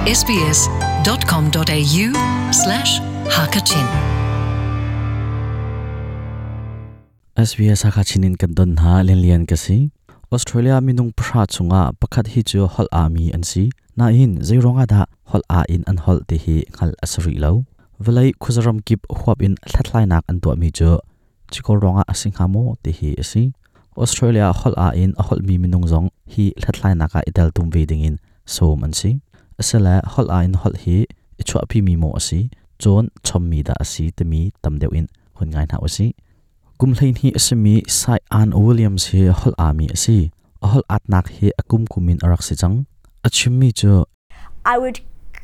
sbs.com.au slash hakachin SBS Hakachin in kan don hna lianlian ka si. Australia minung pahra chungah pakhat hi cu holh ami an si. Nain zeiruang ah dah holh a in an holh ti hi hngalh a si rih lo. Vawlei khuazaram kip huap in hlathlainak an tuahmi cu cikor ruangah a si hnga maw ti hi a si. Australia holh a in a holhmi minung zong hi hlathlainak ah i teltum ve dingin sawm an si. Asile holh a in holh hi i chuahpimi maw a si, cawn chommi dah a si timi tam deuh in hun ngai hna usih. Kum 12 a simi Sai Ann Williams hi holh aami a si. A holh atnak hi a kum kum in a rak si cang. A chimmi cu I would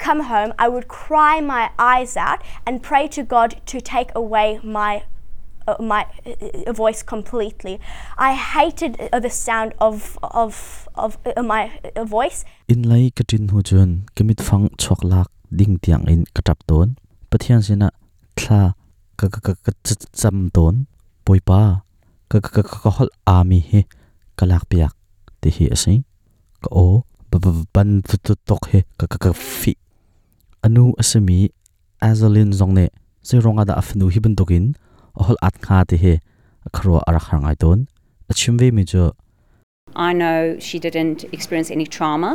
come home, I would cry my eyes out and pray to God to take away my my voice completely. I hated the sound of of of my voice. Inn lei ka ṭin hnu cun ka mitfang chuak lak ding tiang in ka ṭap tawn. Pathian sinah thla ka ka ka ka cam tawn. Bawipa, ka ka ka ka holh aami hi ka lakpiak ti hi a si. Ka aw ban tuk hi ka ka ka fih. A nu a simi Azeline zong nih zeiruang ah dah a fanu hi bantukin a holh at hnga ti hi a khuaruah a rak har ngai tawn. A chim vemi cu I know she didn't experience any trauma,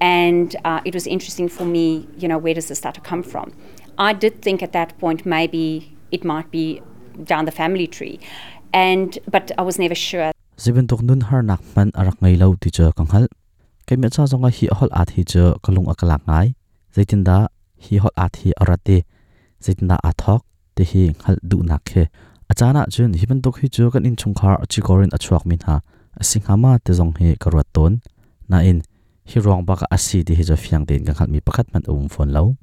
and it was interesting for me, where does this stutter come from? I did think at that point maybe it might be down the family tree, and but I was never sure. Zei bantuk nun harnak hmanh a rak ngei lo ti cu ka hngalh. Keimah ca zongah hi holh at hi cu ka lung a ka lak ngai. Zeitindah hi holh at hi a rat i zeitindah aa thawk ti hi hngalh duhnak khi. A caan ahcun hi bantuk hi cu kan innchungkhar cikor in a chuakmi hna a si hnga ma ti zong hi ka ruat tawn. Nain hi ruang bak ah a si ti hi cu fiang tein ka hngalhmi pakhat hmanh a um fawn lo.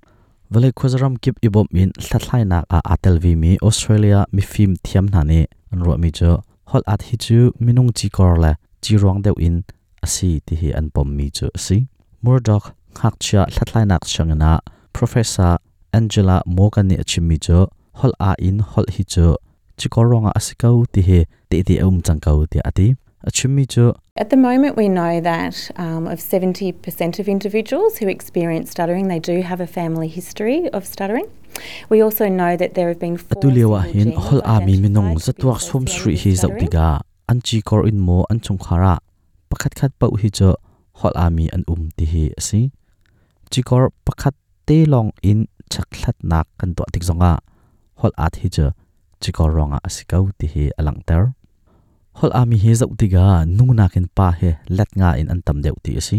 Vawlei khuazaram kip i bawmh in hlathlainak ah aa tel vemi Australia mifim thiam hna nih an ruahmi cu holh at hi cu minung cikor le ciruang deuh in a si ti hi an pommi cu a si. Murdoch ngakchia hlathlainak sianginn ah Professor Angela Morgan nih a chimmi cu holh aa in holh hi cu cikor ruangah a si ko ti hi tehte a um cang ko tiah a ti. A chimmi cu At the moment, we know that of 70% of individuals who experience stuttering, they do have a family history of stuttering. We also know that there have been four Atu lio ah single hin genes holh aami minung identified to be zatuak sawm associated sarih with hi zoh stuttering. tikah an cikor in maw an chungkhar ah pakhatkhat paoh hi cu holh aami an um ti hi a si. Cikor pakhat te lawng in chekhlatnak kan tuah tik zongah holh at hi cu cikor ruangah a si ko ti hi a langhter. Holh aami hi zoh tikah nu nakin pa hi let nga in an tam deuh ti a si.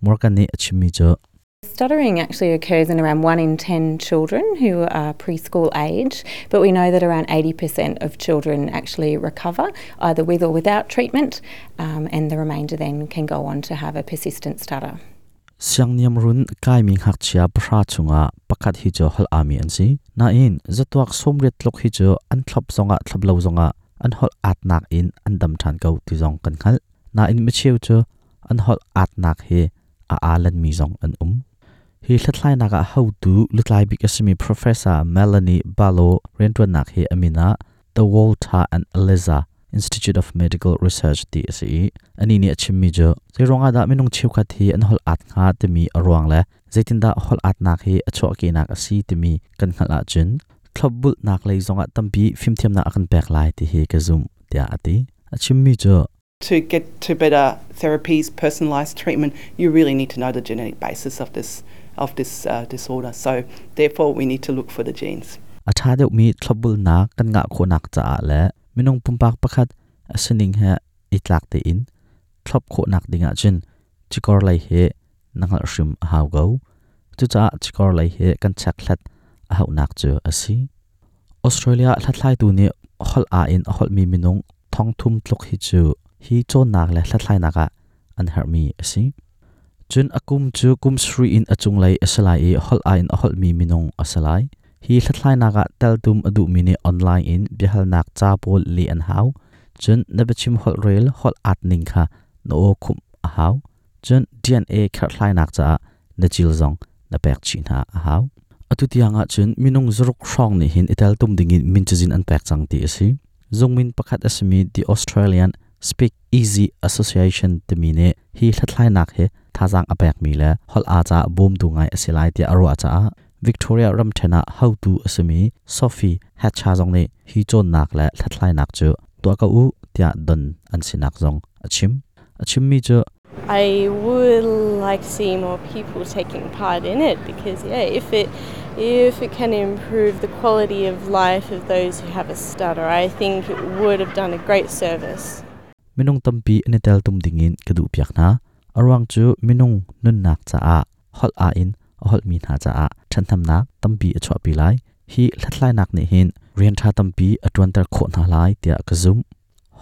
Morgan nih a chimmi cu Stuttering actually occurs in around 1 in 10 children who are preschool age, but we know that around 80% of children actually recover, either with or without treatment, and the remainder then can go on to have a persistent stutter. Siangniamrun kaimi ngakchia 10 chungah pakhat hi cu holh aami an si. Nain zatuak 80 tluk hi cu an thlop zongah thlop lo zongah an holh atnak in an dam ṭhan ko ti zong kan hngalh. Nain micheu cu an holh atnak hi a aalanmi zong an um. Hi hlathlainak ah hotu lutlai bik a simi Professor Melanie Barlow rianṭuannak hi a min ah The Walter and Eliza Institute of Medical Research ti a si i anih nih a chimmi cu zeiruang ah dah minung cheukhat hi an holh at hnga timi a ruang le zeitindah holh atnak hi a chuahkehnak a si timi kan hngalh ahcun thlopbulhnak lei zongah tampi fimthiamnak a kan pek lai ti hi ka zumh tiah a ti. A chimmi cu To get to better therapies, personalised treatment, you really need to know the genetic basis of this of this disorder. So therefore we need to look for the genes. A ṭha deuhmi thlopbulnak kan ngah khawhnak caah le minung pumpak pakhat a sining he i tlak tein thlop khawhnak ding ahcun cikor lei hi na hngalh hrim a hau ko. Cucaah cikor lei hi kan chekhlat a hauhnak cu a si. Australia hlathlaitu nih holh aa in a holhmi minung 3,000 tluk hi cu hi cawnnak le hlathlainak ah an herhmi a si. Cun a kum cu kum 7 in a cunglei a si lai i holh aa in a holhmi minung a si lai. Hi hlathlainak ah teltum a duhmi nih online in biahalnak ca pawl leh an hau. Cun na biachim holhrel holh aat ning kha na aw khumh a hau. Cun DNA kherhhlainak caah na cil zong na pek chih hna a hau. Atu tiang ah cun minung 6 hrawng nih hin i teltum dingin min cazin an pek cang ti a si. Zungmin pakhat a simi The Australian Speak Easy Association timi nih hi hlathlainak hi thazaang a pekmi le holh aa caah bawmtu ngai a si lai tiah a ruah caah Victoria ramṭhen ah hotu a simi Sophie Hatcher zong nih hi cawnnak le hlathlainak cu tuah ko u tiah don an sinak zong a chim. A chimmi cu I would like to see more people taking part in it because yeah, if it if it can improve the quality of life of those who have a stutter, I think it would have done a great service. Minung tampi an i teltum dingin ka duhpiak hna. A ruang cu minung nunnak caah holh aa in a holhmi hna caah ṭhathnemnak tampi a chuahpi lai. Hi hlathlainak nih hin rian ṭha tampi a ṭuanter khawh hna lai tiah ka zumh.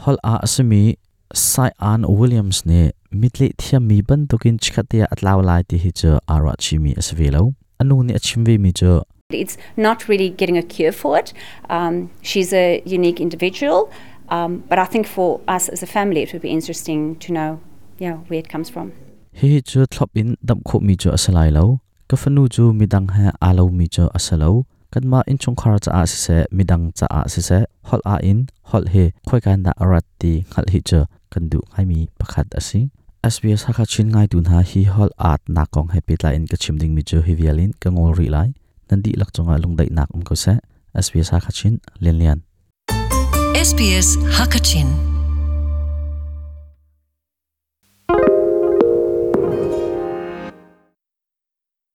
Holh aa a simi Sai-Ann Williams nih mitleh thiammi bantukin chikkhatte ah a tlau lai ti hi cu aa ruahchihmi a si ve lo. A nu nih a chim vemi cu It's not really getting a cure for it. Um, she's a unique individual, um, but I think for us as a family, it would be interesting to know yeah, where it comes from. Hihi cu thlop in damh khawhmi cu a si lai lo. Ka fanu cu midang he aa lomi cu a si lo. Kanmah innchungkhar caah siseh, midang caah siseh, holh ah in holh hi khoika in dah a rat ti hngalh hi cu kan duh ngaimi pakhat a si. SBS Hakha Chin ngaitu hna hi holh aat nak kong he pehtlai in ka chim dingmi cu hi vial in ka ngol rih lai. Nan dihlak cungah lungdaihnak um ko seh. SBS Hakha Chin, Lian Lian. SBS Hakachin.